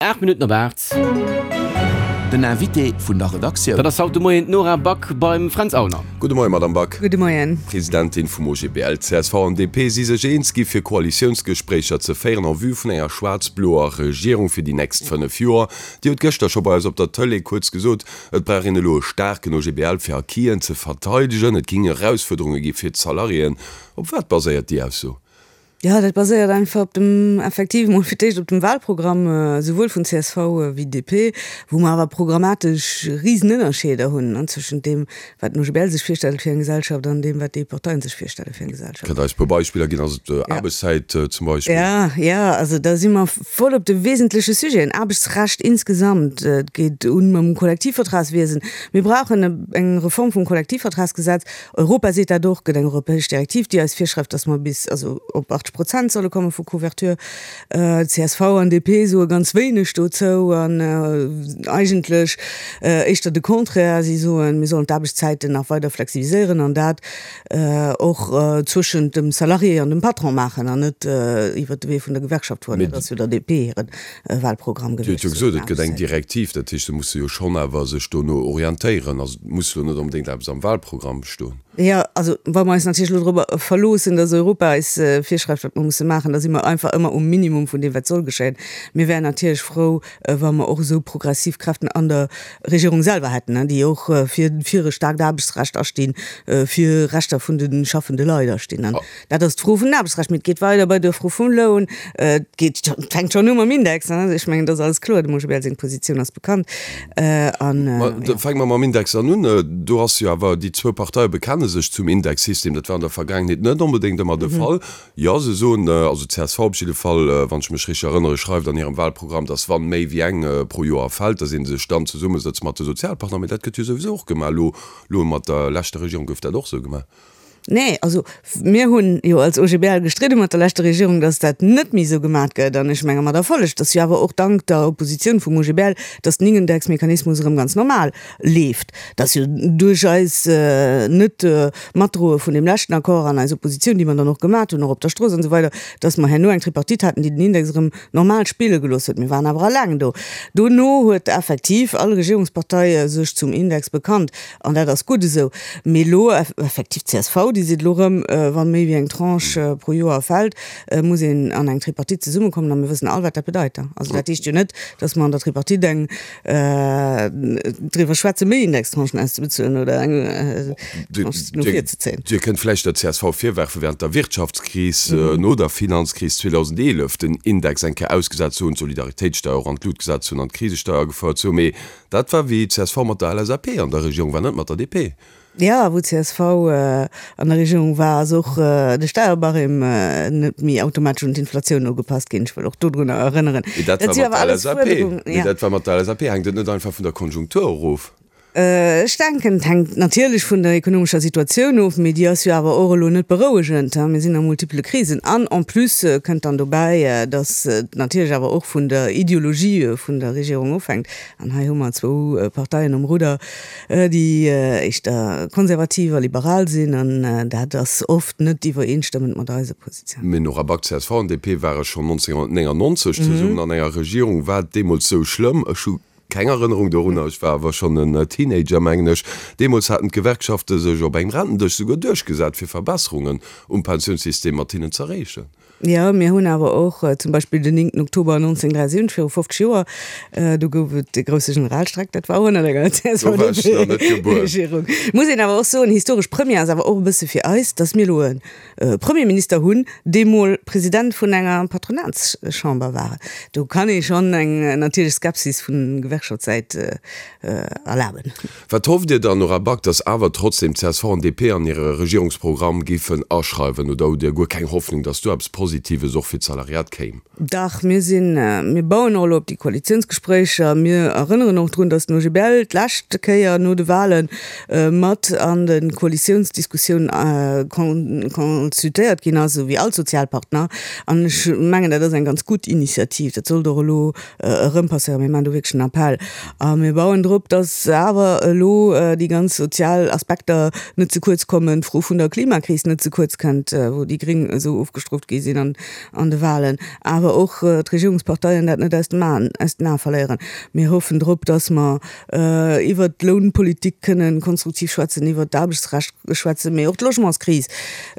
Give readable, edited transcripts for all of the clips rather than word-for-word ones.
8 Minutten op 8. Den Invité vun der Redaktioun. Dat ass haut de Moien d'Nora Back beim Fränz Aulner. Gudde Moien, Madamm Back. Gudde Moien. D'Presidentin vum OGBL, csv an DP si sech eens gi fir Koalitiounsgespréicher ze féieren en vue vun enger schwaarz-bloer Regierung fir déi nächst 5 Joer. Dir hutt gëschter scho bei eis op der Tëlee kuerz gesot, et brauch een elo e staarken OGBL fir Acquisen ze verteidegen. Et géing Erausfuerderunge gi fir d'Salariéen. Op wat baséiert déi Ausso? Jo, dat baséiert einfach op dem, effektiv emol fir d'éischt op dem Wahlprogramm, esouwuel vun csv wéi DP, wou mer awer programmatesch Risenënnerscheeder hunn zwëschent deem, wat den OGBL sech virstellt fir eng Gesellschaft an deem, wat déi Parteien sech virstelle fir eng Gesellschaft. Kënnt Der eis e puer Beispiller ginn? Ass et Aarbechtszäit zum Beispill? Jo, jo, also da si mer voll op de wesentleche Sujeten, Aarbechtsrecht insgesamt, et geet un mam Kollektivvertragswiesen. Mir brauchen eng Reform vum Kollektivvertragsgesetz. Europa seet dat och, gëtt eng europäesch Direktiv, déi eis virschreift, datt mer bis also op 80 Prozent solle komme vu Couverture. Csv an DP soe ganz wéineg dozou an eigentlech éischter de Contraire. Si soen, mir sollen d'Aarbechtszäiten nach weider flexibiliséieren an dat och zwëschent dem Salarié an dem Patron maachen an net iwwert de Wee vun der Gewerkschaft fueren. Dat ass jo der DP hire Wahlprogramm Dir hutt gewiescht jo gesot, et gëtt eng Direktiv, dat heescht, se musse jo schonn awer sech dono orientéieren. Also et muss elo net onbedéngt eppes am Wahlprogramm stoen. Jo, also wa mer eis natierlech elo dorobber verloossen, datt Europa eis virschreift, wat mer musse maachen, da si mer einfach ëmmer um Minimum vun deem, wat soll geschéien. Mir wären natierlech frou, wa mer och esou progressiv Kräften an der Regierung selwer hätten, déi och fir fir e staarkt Aarbechtsrecht astinn, fir Rechter vun de schaffende Leit astinn. Dat ass d'Fro vun den Aarbechtsrecht, mee et geet weider bei der Fro vum Loun. Et geet, et fänkt schonn u mam Index, ne? Ech mengen, dat ass alles kloer. Dem OGBL seng Positioun ass bekannt. An, Ma da fänke mer mam Index an un. Do ass jo awer, déi zwou Parteie bekenne sech zum Indexsystem. Dat war an der Vergaangenheet net onbedéngt ëmmer de Fall. Jo, se soen, also csv op jidde Fall, wann ech mech richteg erënnere, schreift an hirem Wahlprogramm, datt wann méi wéi eng pro Joer fält, datt ee sech dann zesummesëtzt mat de Sozialpartner. Mee dat gëtt jo souwisou och gemaach. Elo, elo mat der leschter Regierung gouf dat och esou gemaach. Nee, also mir hunn jo als OGBL gestridde mat der leschter Regierung, datt dat net méi esou gemat gëtt, an ech menge mat Erfolleg. Et ass jo awer och dank der Oppositioun vum OGBL, datt den Indexmechanismus erëm ganz normal leeft. Et ass jo duerch eis Net-Matdroe vun deem leschten Accord an eis Oppositioun, déi mer dann och gemat hunn, och op der Strooss an esou weider, datt mer herno eng Tripartite haten, déi den Index erëm normal spille gelooss huet. Mir waren awer eleng do. Dono huet effektiv all Regierungspartei sech zum Index bekannt. An dat ass gutt esou. Mee elo effektiv, d'CSV, déi seet elo erëm, wa méi wéi eng Tranche pro Joer fält, muss een an eng Tripartite zesummekommen. A mir wëssen all, wat dat bedeit. Also dat heescht jo net, datt mer an der Tripartite eng driwwer schwätzen, méi Indextranchen auszebezuelen oder eng Tranche no vir ze zéien. Dir kënnt vläicht der csv virwerfen, während der Wirtschaftskris, no der Finanzkris 2011, den Index eng Kéier ausgesat ze hunn, d'Solidaritéitssteuer och an d'Lut gesat ze hunn an d'Krisesteuer agefouert ze hunn. Mee Dat war wéi csv mat der LSAP an der Regierung war, net mat der DP. Jo, wou csv an der Regierung war, ass och de Steierbarème net méi automatesch un d'Inflatioun ugepasst ginn. Ech wëll och dodrunner erënneren. Mee dat war mat der LSAP. Mee dat war mat der LSAP. Hänkt et net einfach vun der Konjunktur erof? Ech denken, et hänkt natierlech vun der ekonomescher Situatioun of, mee déi ass jo awer och elo net berouegend. Mir sinn a multipele Krisen an en plus kënnt dann dobäi, datt et natierlech awer och vun der Ideologie vun der Regierung ofhänkt. An hei hu mer zwou Parteien um Rudder, déi éischter konservativ a liberal sinn, an dat ass oft net iwwereenstëmmend mat eiser Positioun. Mme Nora Back, csv an DP ware schonn 1999 zesummen an enger Regierung. War et deemools sou schlëmm? Ech hu keng Erënnerung dorunner, ech war awer schonn en Teenager, mengen ech. Deemools haten d'Gewerkschafte sech op engem Rentendësch souguer duerchgesat, fir Verbesserungen um Pensiounssystem mat hinnen z'erreechen. Jo, mir hunn awer och zum Beispill den 9. Oktober 1973, viru 50 Joer, do gouf et de grousse Generalstreik, dat war och ënnert enger CSV-DP-Regierung. Muss een awer och soen, historesch Première ass awer och e bësse fir eis, datt mir elo e Premierminister hunn, dee mol President vun enger Patronatschamber war. Do kann ee schonn eng natierlech Skepsis vun Gewerkschaftssäit erlaben. Wat hofft Dir dann, Nora Back, datt awer trotzdem csv an DP an hire Regierungsprogramm géifen aschreiwen? Oder hutt Dir guer keng Hoffnung, datt do eppes Positives och fir d'Salariat kéim? Dach, mir sinn, mir bauen och elo op déi Koalitiounsgespréicher. Mir erënneren och drun, datt den OGBL d'lescht Kéier no de Wahle mat an de Koalitiounsdiskussioun consultéiert ginn ass, esou wéi all Sozialpartner. An ech mengen, dat ass eng ganz gutt Initiativ. Dat sollt och elo erëm passéieren. Mir maachen do wierklech en Appell a mir bauen drop, dass awer elo déi ganz sozial Aspekter net ze kuerz kommen, d'Fro vun der Klimakris net ze kuerz kënnt, wou déi Gréng esou ofgestrooft gi sinn. ginn an an de Wahlen, awer och d'Regierungsparteien dat net aus dem Aen, aus den Ae verléieren. Mir hoffen drop, dass mer iwwert d'Lounpolitik kënnen konstruktiv schwätzen, iwwert d'Aarbechtsrecht schwätzen, mee och d'Logementskris.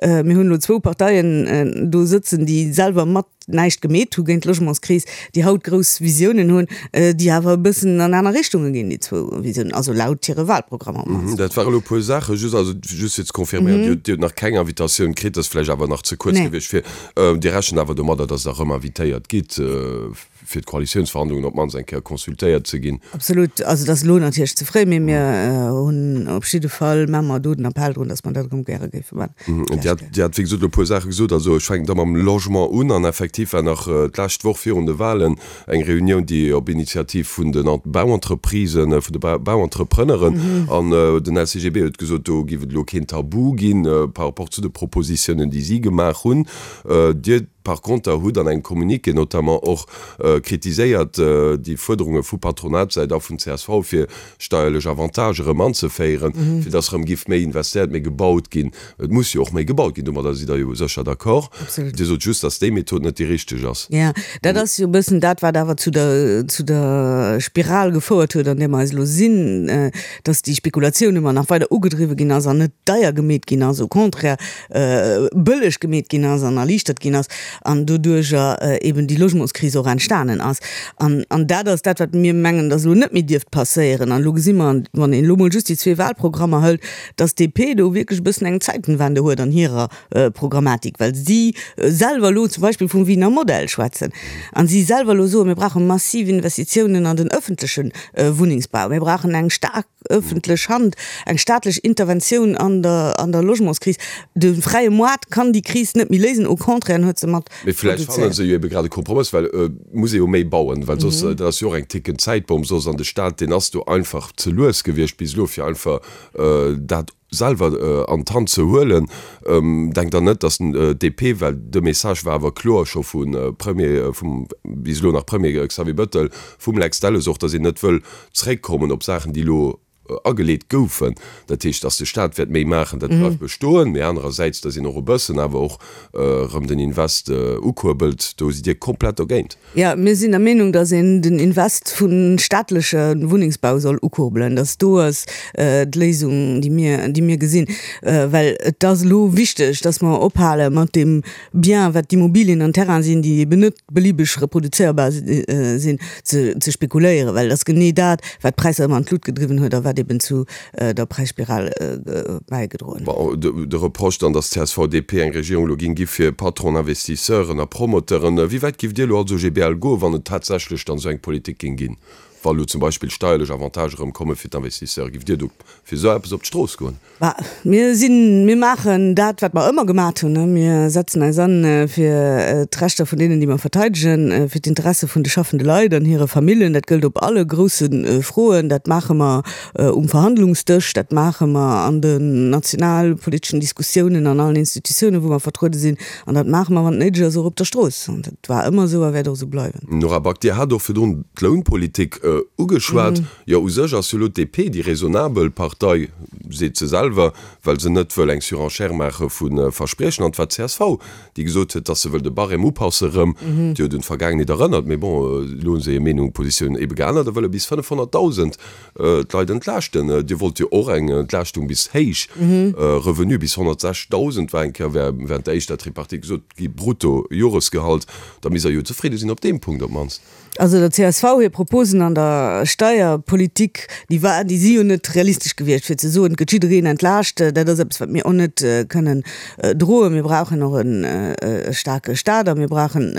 Mir hunn elo zwou Parteien do sëtzen, déi selwer mat näischt gemeet hu géint d'Logementskris, déi haut grouss Visiounen hunn, déi awer e bëssen an aner Richtunge ginn, déi zwou Visiounen, also laut hire Wahlprogrammer op d'mannst. Dat ware elo e puer Saachen. Just, also just fir ze confirméieren, Dir hutt, Dir hutt nach keng Invitatioun kritt, dat ass vläicht awer nach ze kuerz gewiescht fir, Dir rechent awer domadder, datt Der erëm invitéiert gitt, fir d'Koalitiounsverhandlungen op d'mannst eng Kéier consultéiert ze ginn? Absolut. Also et ass elo natierlech ze fréi, mee mir hunn op jidde Fall, maache mer do den Appell drun, datt mer dat erëm gäre géife maachen. Dir hat, Dir hat wéi gesot elo e puer Saache gesot. Also ech fänken da mam Logement un. An effektiv war nach d'lescht Woch virun de Wahlen eng Reunioun, déi op Initiativ vun den Bauentreprisen, vun de Bauentrepreneuren, an den LCGB huet gesot, do géif et elo keen Tabu ginn par rapport zu de Propositiounen, déi si gemaach hunn. Dir par conter hutt an engem Communiqué notamment och kritiséiert déi Fuerderunge vu Patronatssäit a vun csv, fir steierlech Avantage erëm anzeféieren, fir dass erëm giff méi investéiert, méi gebaut ginn. Et muss jo och méi gebaut ginn, domadder sidd Der jo sécher d'accord. Dir sot just, dass déi Method net déi richteg ass. Jo, dat ass jo e bëssen dat, wat awer zu der, zu der Spiral gefouert huet, an där mer eis elo sinn, dass déi Spekulatioun ëmmer nach weider ugedriwwe ginn ass an net deier gemeet ginn ass, au contraire bëlleg gemeet ginn ass an erliichtert ginn ass an doduerjer eben déi Logementskris och entstanen ass. An, an dat ass dat, wat mir mengen, dass elo net méi dierft passéieren. An elo gesi mer, wann een elo mol just déi zwee Wahlprogrammer hëlt, dass d'DP do wierklech e bëssen eng Zeitenwende huet an hirer Programmatik, well si selwer elo zum Beispill vum Wiener Modell schwätzen an si selwer elo soen, mir brauche massiv Investitiounen an den öffentleche Wunnengsbau, mir brauchen eng staark öffentlech Hand, eng staatlech Interventioun an der, an der Logementskris. De fräie Moart kann déi Kris net méi léisen, au contraire, en huet se mat Mee vläicht fanne se jo ebe grad e Kompromëss, well et muss ee jo méi bauen, well soss, dat ass jo och eng tickend Zäitbomm soss, an de Staat, deen ass do einfach ze lues gewiescht bis elo, fir einfach dat selwer an d'Hand ze huelen. Denkt Der net, datt d'DP, well de Message war awer kloer scho vu Premier, vum bis elo nach Premier Xavier Bettel, vum Lex Delles och, datt een net wëll zréckkommen op Saachen, déi elo ageleet goufen, dat heescht, datt de Staat wäert méi maachen, dat bleift bestoen, mee anerersäits, datt een och e bëssen awer och erëm den Invest ukuerbelt, do sidd Dir komplett dogéint. Jo, mir sinn der Meenung, datt een den Invest vu staatleche Wunnengsbau soll ukurbelen, datt do ass d'Léisung, déi mir, déi mir gesinn, well et ass elo wichteg, datt mer ophale mat deem Bien, wat d'Immobilien an Terrainen sinn, déi eben net belibeg reproduzéierbar sinn, ze spekuléieren, well et ass genee dat, wat d'Präisser ëmmer an d'Lut gedriwwen huet a wat eben zu der Präisspiral bäigedroen huet. De Reproche dann, datt csv-DP eng Regierung elo géing gi fir Patronen, Investisseuren a Promoteuren. Wéi wäit giff Dir elo als OGBL goen, wann et tatsächlech dann esou eng Politik géing ginn? Wa elo zum Beispill steierlech Avantagë rëm komme fir d'Investisseure, giff Dir do fir esou eppes op d'Strooss goen? Bah, mir sinn, mir maachen dat, wat mer ëmmer gemat hunn. Mir setzen eis an fir d'Rechter vun deenen, déi mer verteidegen, fir d'Interesse vun de schaffende Leit an hire Famillen. Dat gëllt op alle grousse Froen. Dat maache mer um Verhandlungsdësch, dat maache mer an den nationalpoliteschen Diskussiounen an allen Institutiounen, wou mer vertruede sinn. An dat maache mer, wann et néideg ass, och op der Strooss. An dat war ëmmer esou a wäert och esou bleiwen. Nora Back, Dir hat och virdrun d'Lounpolitik ugeschwat. Jo, u sech ass jo elo d'DP déi raisonnabel Partei, seet se selwer, well se net wëll eng Surenchère maache vu Verspriechen. An et war d'CSV, déi gesot huet, datt se wëll de Barème upasse erëm. Déi huet un d'Vergaangenheet erënnert. Mee bon, elo hu se hir Meenung, Positioun ebe geännert a wëlle bis 500.000 d'Leit entlaaschten. Dir wollt jo och eng Entlaaschtung bis héich Revenue, bis 106.000 war eng Kéier während der éischter Tripartite gesot gi brutto Joresgehalt. Da misst Der jo zefridde sinn op deem Punkt op d'mannst. Also der csv hir Proposen an der Steierpolitik, déi war, déi si jo net realistesch gewiescht, fir ze soen, et gëtt jiddereen entlaascht. Dat ass eppes, wat mir och net kënnen droen. Mir brauchen och e staarke Staat a mir brauchen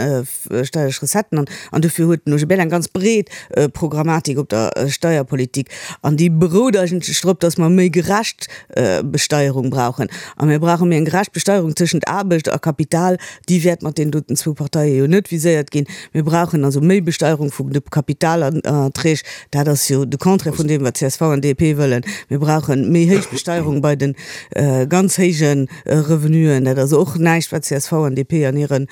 steierlech Recetten. An dofir huet den OGBL eng ganz breet Programmatik op der Steierpolitik. An déi berout eigentlech drop, datt mer méi gerecht Besteierung brauchen. A mir brauche méi eng gerecht Besteierung tëschent Aarbecht a Kapital. Déi wäert mat deenen doten zwou Parteie jo net viséiert ginn. Mir brauchen also méi Besteierung. Besteuerung vun de Kapitalerträg. Dat ass jo de Contraire vun deem, wat csv an DP wëllen. Mir brauche méi héich Besteierung bei de ganz héije Revenuen. Dat ass och näischt, wat csv an DP an hire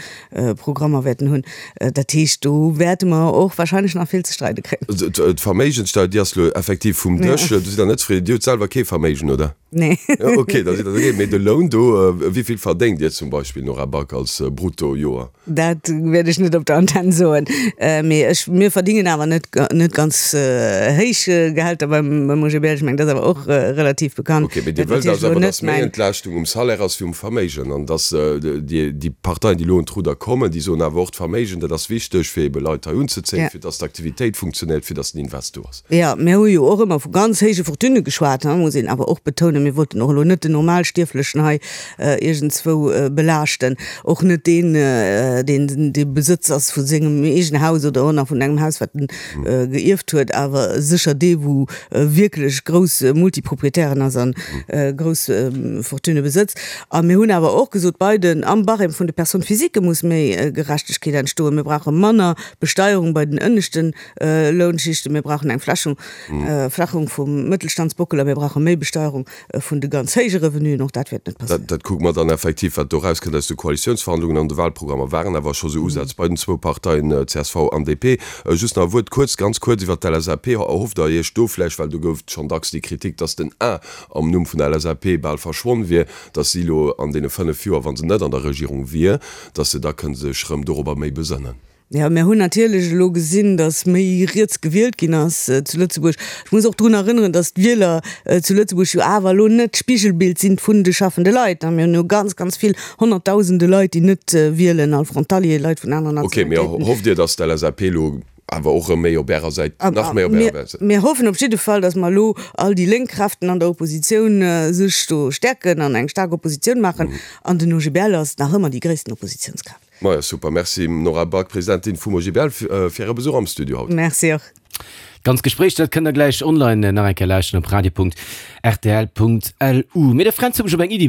Programmer wäerten hunn. Dat heescht, do wäerte mer och wahrscheinlech nach vill ze streide kréien. D'Verméigenssteuer, déi ass elo effektiv vum Dësch. Do sidd Der net zefridden. Dir hutt selwer kee Verméigen, oder? Nee. Ok, da sidd Der dogéint. Mee de Loun do, wéi vill verdéngt Dir zum Beispill, Nora Back, als Brutto-Joer? Dat wäert ech net op der Antenn soen. Mee ech, mir verdingen awer net, net ganz héich Gehälter beim, beim OGBL. Ech mengen, dat ass awer och relativ bekannt. Ok, mee Dir wëllt also awer, datt méi Entlaaschtung um Salaire ass wéi um Verméigen an datt déi, déi Parteien, déi elo un d'Rudder kommen, déi soen awer och, d'Verméigen, dat ass wichteg, fir ebe Leit hei unzezéien, fir datt d'Aktivitéit funktionéiert, fir datt den Invest do ass. Jo, mir hu jo och ëmmer vu ganz héije Fortunë geschwat, muss een awer och betounen. Mir wollten och elo net den Normalstierflechen hei iergendzwou belaaschten, och net deen, deen de Besëtz ass vu sengem eegene Haus oder och nach vun engem Haus, wat en geierft huet, awer sécher dee wou wierklech grouss Multiproprietären ass a grouss Fortunë besëtzt. A mir hunn awer och gesot, bei den, am Barème vun de Personnes physiques muss méi Gerechtegkeet entstoen. Mir brauche manner Besteierung bei den ënneschten Lounschichten, mir brauchen eng Flächung, Flächung vum Mëttelstandsbockel a mir brauche méi Besteierung vun de ganz héije Revenuen. Och dat wäert net passéieren. Dat kucke mer dann effektiv, wat do erauskënnt aus de Koalitiounsverhandlungen. An de Wahlprogrammer waren awer scho sou Usätz bei den zwou Parteien csv an DP. Just nach e Wuert, kuerz, ganz kuerz iwwert d'LSAP. Erhofft Der Iech do vläicht, well do gouf et schonn dacks déi Kritik, dass den A am Numm vun der LSAP bal verschwonn wier, dass si elo an deene 5 Joer, wa se net an der Regierung wier, dass se da kënne sech erëm dorobber méi besënnen? Jo, mir hunn natierlech elo gesinn, datt méi riets gewielt ginn ass zu Lëtzebuerg. Ech muss och drun erënneren, datt d'Wieler zu Lëtzebuerg jo awer elo net d'Spigelbild sinn vun de schaffende Leit. Mir hunn jo ganz, ganz vill Honnertdausende Leit, déi net wielen, all Frontalier, Leit vun aneren Ok, mee Nationalitéiten. hofft Dir, datt d'LSAP elo awer och erëm méi op Ärer Säit, nach méi op Ärer Säit? Mir hoffen op jidde Fall, datt mer elo all déi lénk Kräften an der Oppositioun sech do stäerken an eng staark Oppositioun maachen. An den OGBL ass nach ëmmer déi gréissten Oppositiounskraaft. Majo super, Merci Nora Back, Presidentin vum OGBL, fir Äre Besuch am Studio haut. Merci och. D'ganz Gespréich, dat kënnt der gläich online nach eng Kéier lauschteren op radio.rtl.lu. Mee de Fränz huet mech op eng Iddi.